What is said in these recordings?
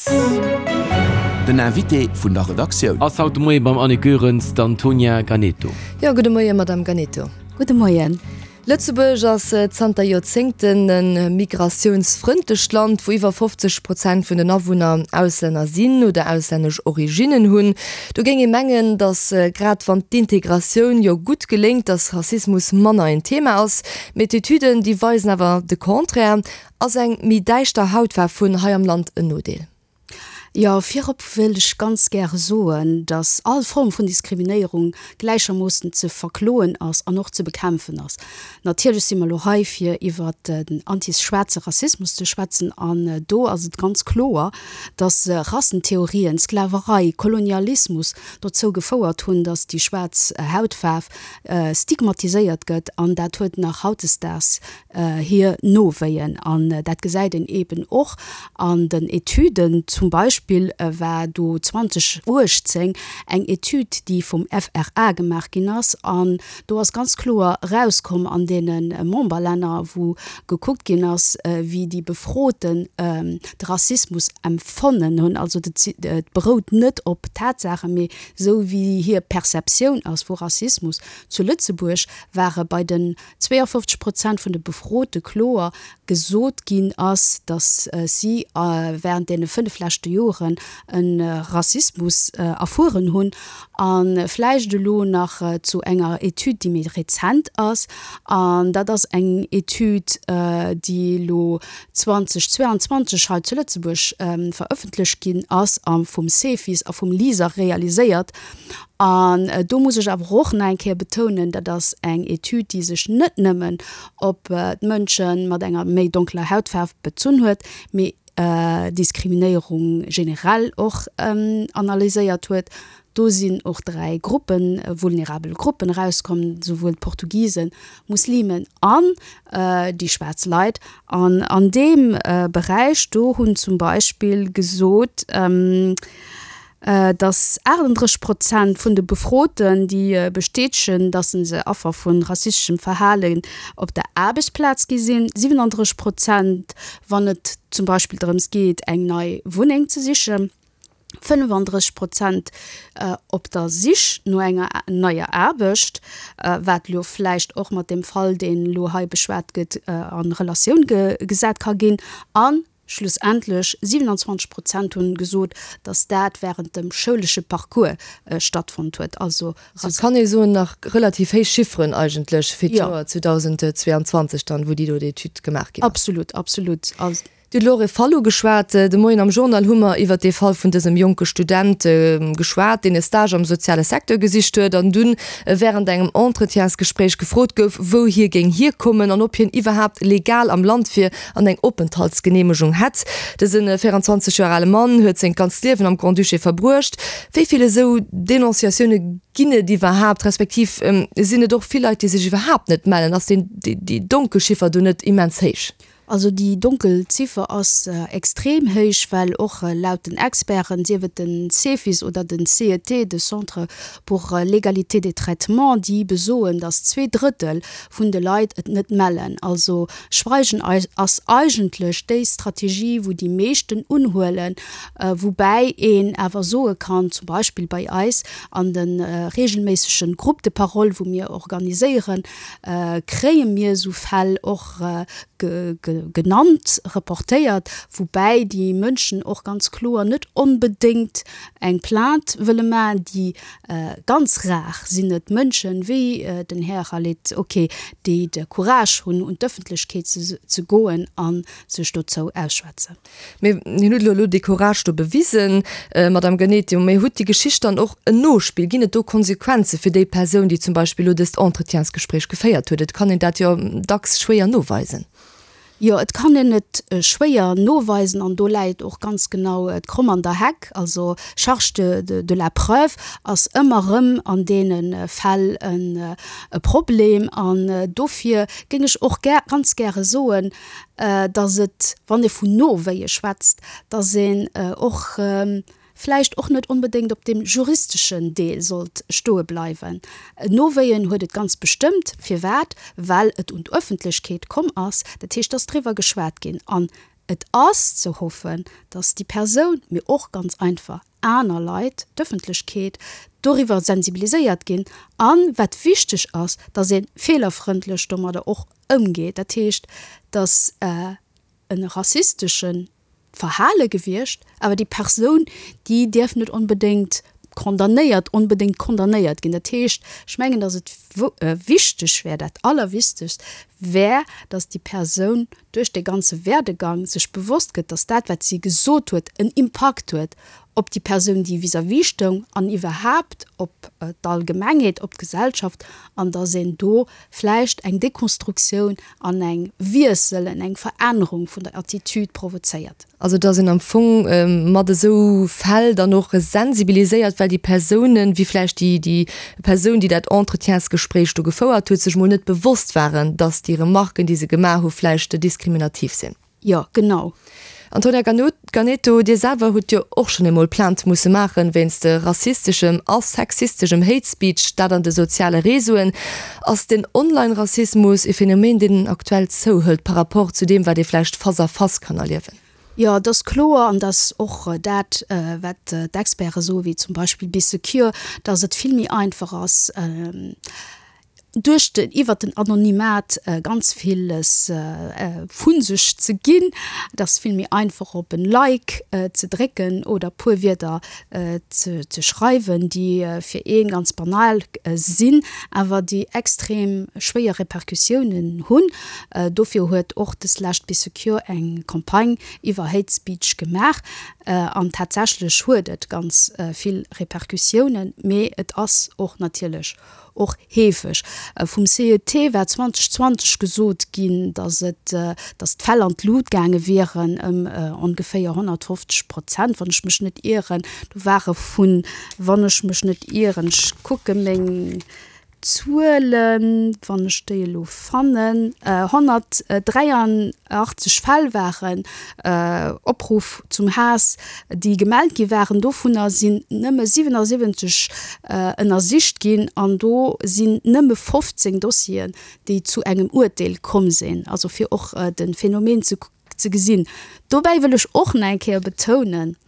Plaz. Den Invité vun der Redaktioun. Ass haut de Moie beim Annick Goerens d'Antonia Ganeto. Jo, gudde Moie Madame Ganeto. Gudde Moien. Lëtzebuerg ass zanter Joerzéngten e migratiounsfrëndlecht Land, wou iwwer 50 Prozent vun den Awunner Auslänner sinn oder auslännesch Originnen hunn. Do géing ee mengen, datt grad wann d'Integratioun jo gutt geléngt, datt Rassismus manner en Thema ass. Mee d'Etüden, déi weisen awer de Contraire. Ass eng méi däischter Hautfaarf vun hei am Land en Nodeel? Jo, virop wëilt ech ganz gäre soen, dass all Form vun Diskriminéierung gläichermoossen ze verkloen ass an och ze bekämpfen ass. Natierlech si mer elo hei, fir iwwert den antischwaarze Rassismus ze schwätzen an do ass et ganz kloer, dass Rassentheorien, Sklaverei, Kolonialismus dozou gefouert hunn, dass déi schwaarz Hautfaarf stigmatiséiert gëtt an dat huet nach hautdesdaags hir Nowéien. An dat gesäit een eeben och an den Etüden. Zum Beispill war do 2018 eng Etüd, déi vum FRA gemaach ginn ass. An do ass ganz kloer erauskomm an deene Memberlänner, wou gekuckt ginn ass, wéi déi Befroten de Rassismus empfonnen hunn. Also et berout net op Tatsaachen, mee esou wéi hir Perceptioun ass vu Rassismus. Zu Lëtzebuerg ware bei den 52 Prozent vun de Befrote kloer gesot ginn ass, datt si wärend deene 5 leschte Joren e Rassismus erfueren hunn. A vläicht elo nach zu enger Etüd, déi méi rezent ass, an dat ass eng Etüd, déi elo 2022 hei zu Lëtzebuerg verëffentlecht ginn ass a vum Cefis a vum LISER realiséiert. An do muss ech awer och nach eng Kéier betounen, dat ass eng Etüd, déi sech net nëmmen op d'Mënsche mat enger méi donkeler Hautfaarf bezunn huet, mee Diskriminéierung generell och analyséiert huet. Do sinn och 3 Gruppen, vulnerabel Gruppen erauskomm, souwuel d'Portugisen, Muslimen an déi schwaarz Leit. An an deem Beräich do hunn zum Beispill gesot, Dass 38 Prozent vun de Befroten, déi bestätegen, dass se Affer vu rassisteschem Verhalen op der Aarbechtsplaz gi sinn, 37 Prozent, wann et zum Beispill drëms geet, eng nei Wunneng ze sichen, 35 Prozent op der Sich no enger neier Aarbecht, wat elo vläicht och mat deem Fall, deen elo hei beschwat gëtt, a Relatioun gesat ka ginn, an Schlussendlech 27 Prozent hunn gesot, datt dat wärend dem schoulesche Parcours stattfonnt huet. Also. Et kann ee soen, nach relativ héich Chifferen eigentlech fir d'Joer 2022 dann, wou déi do Etüd gemaach ginn ass. Absolut, absolut. Dir hutt elo och e Fall ugeschwat. De Moien am Journal hu mer iwwert dee Fall vun dësem jonke Student geschwat, deen e Stage am soziale Secteur gesicht huet an dunn wärend engem Entretiensgespréich gefrot gouf, wou hie géing hierkommen an ob hien iwwerhaapt legal am Land wier an eng Openthaltsgeneemegung hätt. Dëse 24 Joer ale Mann huet sengt ganzt Liewen am Grand-Duché verbruecht. Wéi vill esou Denonciatioune ginn et iwwerhaapt, respektiv sinn et och vill Leit, déi sech iwwerhaapt net mellen? Ass déi Donkelchiffer do net immens héich? Also déi donkel Ziffer ass extrem héich, well och laut den Experten, sief et den Cefis oder den CET, de Centre pour l'égalité des traitements, déi besoen, datt 2/3 vun de Leit et net mellen. Also Schweigen ass eigentlech déi Strategie, wou déi meeschten unhuelen, woubäi een awer soe kann, zum Beispill bei eis an de regelméissege Groupes de parole, wou mir organiséieren, kréie mir esou Fäll och genannt, reportéiert, woubäi déi Mënschen och ganz kloer net onbedéngt eng Plainte wëlle maachen, déi Ganz rar sinn et Mënschen, wéi den Här Khaled, ok, déi de Courage hunn, un d'Ëffentlechkeet ze goen a sech dozou ausschwätzen. Mee hien huet elo dee Courage do bewisen, Madame Ganetio. Mee huet déi Geschicht dann och en Nospill? Ginn et do Konsequenze fir déi Persoun, déi zum Beispill elo dëst Entretiensgespréich geféiert huet? Et kann een dat jo dacks schwéier noweisen. Jo, et kann een et schwéier noweisen an do läit och ganz genau d'Kromm an der Heck. Also Charge de de la preuve ass ëmmer erëm an deene Fäll e Problem. An dofir géing ech och gär, ganz gäre soen, datt et, wann ee vun Nowéie schwätzt, datt een och vläicht och net onbedéngt op deem juristeschen Deel sollt stoe bleiwen. Nowéien huet et ganz bestëmmt. Firwat? Well et un d'Öffentlechkeet komm ass. Dat heescht, et ass driwwer geschwat ginn. An Et ass ze hoffen, dass déi Persoun, mee och ganz einfach aner Leit, d'Ëffentlechkeet, doriwwer sensibiliséiert ginn an, wat wichteg ass, dass ee feelerfrëndlech domadder och ëmgeet. Dat heescht, dass e rassistesche Verhale gewiescht, awer déi Persoun, déi dierf net onbedéngt condamnéiert, onbedéngt condamnéiert ginn. Dat heescht, ech mengen, dass et wichteg wär, dat Allerwichtegst wär, dass déi Persoun duerch dee ganze Werdegang sech bewosst gëtt, dass dat, wat si gesot huet, en Impakt huet op déi Persoun, déi vis-à-vis stoung an iwwerhaapt op d'Allgemengheet, op d'Gesellschaft, an dass een do vläicht eng Dekonstruktioun an eng Wiessel, eng Verännerung vun der Attitude provozéiert. Also dass een am Fong mat esou Fäll dann och sensibiliséiert, well déi Persounen, wéi vläicht déi déi Persoun, déi dat Entretiensgespréich do gefouert huet, sech mol net bewosst waren, dass déi Remarken, déi se gemaach hu vläicht diskriminativ sinn. Jo, genau. Antonia Ganeto, Dir selwer hutt jo och schonn eemol Plainte musse maachen wéinst rassisteschem a sexisteschem Hate Speech, dat an de soziale Réseauen. Ass den Online-Rassismus e Phänomen, deen aktuell zouhëlt par rapport zu deem, wat ee vläicht face à face kann erliewen? Jo, et ass kloer, an dat ass och dat, wat d'Experte soen, wéi zum Beispill Bee Secure, dass et vill méi einfach ass, duerch den, iwwert den Anonymat ganz villes vu sech ze ginn. Et ass vill méi einfach op en Like ze drécken oder puer Wierder ze ze schreiwen, déi fir ee ganz banal sinn, awer déi extrem schwéier Repercussiounen hunn. Dofir huet och deslescht Bee Secure eng Campagne iwwer Hate Speech gemaach an tatsächlech huet et ganz vill Repercussiounen, mee et ass och natierlech och heefeg. Vum CET war 2020 gesot ginn, datt et, datt d'Fäll an d'Lut gaange wieren ëm ongeféier 150 Prozent, wann ech mech net ieren. Do ware vun, wann ech mech net ieren, ech kucke meng Zuelen, wann ech déi elo fannen, 183 Fäll waren Opruff zum Haass, déi gemellt gi waren. Dovunner sinn nëmme 77 ënnersicht ginn an do sinn nëmme 15 Dossieren, déi zu engem Urteel komm sinn. Also fir och de Phänomen ze gesinn. Dobäi wëll ech och nach eng Kéier betounen,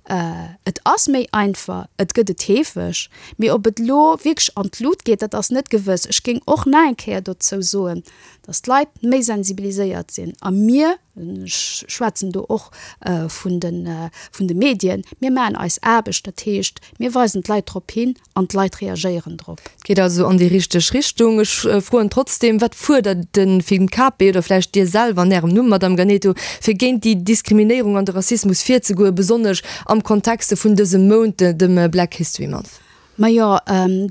Et ass méi einfach, et gëtt et heefeg, mee ob et elo wierklech an d'Lut geet, dat ass net gewëss. Ech géing och nach eng Kéier dozou soen, datt d'Leit méi sensibiliséiert sinn a mir, Ech schwätzen do och vun de Medien. Mir maachen eis Aarbecht, dat heescht, mir weisen d'Leit drop hin an d'Leit reagéieren drop. Et geet also an déi richteg Richtung. Ech froen trotzdeem, Wat fuerdert de FIMKP oder vläicht Dir selwer an Ärem Numm, Madamm Ganeto, fir géint déi Diskriminéierung an de Rassismus virzegoen, besonnesch am Kontexte vun dësem Mount, dem Black History Month? Majo,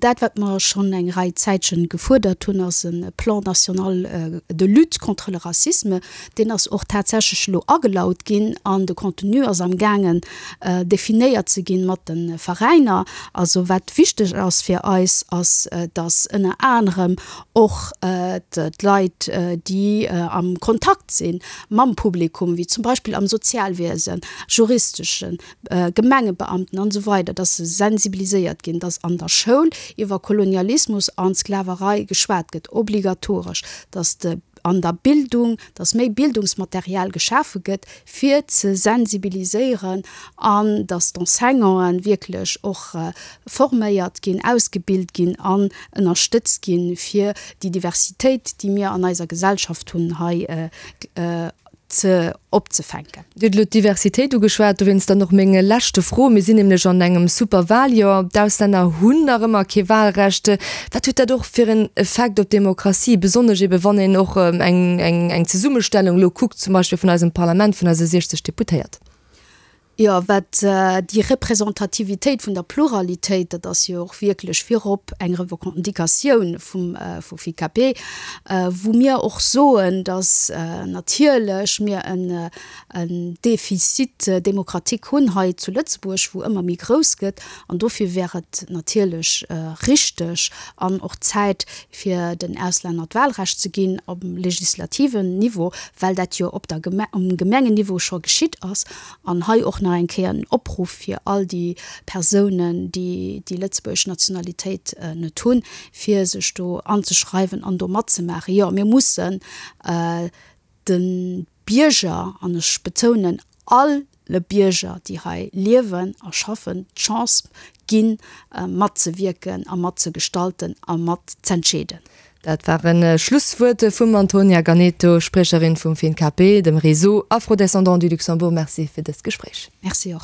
dat wat mer schonn eng Rei Zäitchen gefuerdert hunn, ass e Plan national de lutte contre le racisme. Deen ass och tatsächlech elo agelaut ginn an de Contenu ass amgaangen definéiert ze ginn mat de Veräiner. Also wat wichteg ass fir eis, ass datt ënner anerem och d'Leit, déi am Kontakt si mam Publikum, wéi zum Beispill am Sozialwiesen, juristeschen, Gemengebeamten an esou weider, dass se sensibiliséiert ginn, dass an der Schoul iwwer Kolonialismus an Sklaverei geschwat gëtt, obligatoresch, dass de an der Bildung, dass méi Bildungsmaterial geschafe gëtt, fir ze sensibiliséieren an dass d'Enseignanten wierklech och forméiert ginn, ausgebilt ginn an ënnerstëtzt ginn, fir déi Diversitéit, déi mir an eiser Gesellschaft hunn, hei ze opzefänken. Dir hutt elo d'Diversitéit ugeschwat, dowéinst dann och meng leschte Fro. Mir sinn nämlech an engem Superwaljoer. D'Auslänner hunn nach ëmmer kee Walrecht. Wat huet dat och fir en Effekt op d'Demokratie, besonnesch ebe wann een och eng eng Zesummestellung elo kuckt, zum Beispill vun eisem Parlament, vun eise 60 Deputéiert? Jo, wat déi Representativitéit vun der Pluralitéit, dat ass jo och wierklech virop eng Revendicatioun vum vu FICAP, wou mir och soen, datt natierlech mir en en Déficit démocratique hunn hei zu Lëtzebuerg, wou ëmmer méi grouss gëtt. An dofir wär et natierlech richteg an och Zäit, fir den Auslänner d'Wahlrecht ze ginn um legislativen Niveau, well dat jo op der um Gemengenniveau scho geschitt ass. An hei och nach eng Kéier en Opruff fir all déi Persounen, déi déi lëtzebuergesch Nationalitéit net hunn, fir sech do anzeschreiwen an do matzemaachen. Jo, mir mussen de. Bierger, an ech betounen alle Bierger, déi hei liewen a schaffen, d'Chance ginn, matzewierken a matzegestalten a mat z'entscheeden. Dat waren Schlusswuert vum Antonia Ganeto, Spriecherin vum FINKP, dem Réseau Afro-Descendants du Luxembourg. Merci fir dëst Gespréich. Merci och.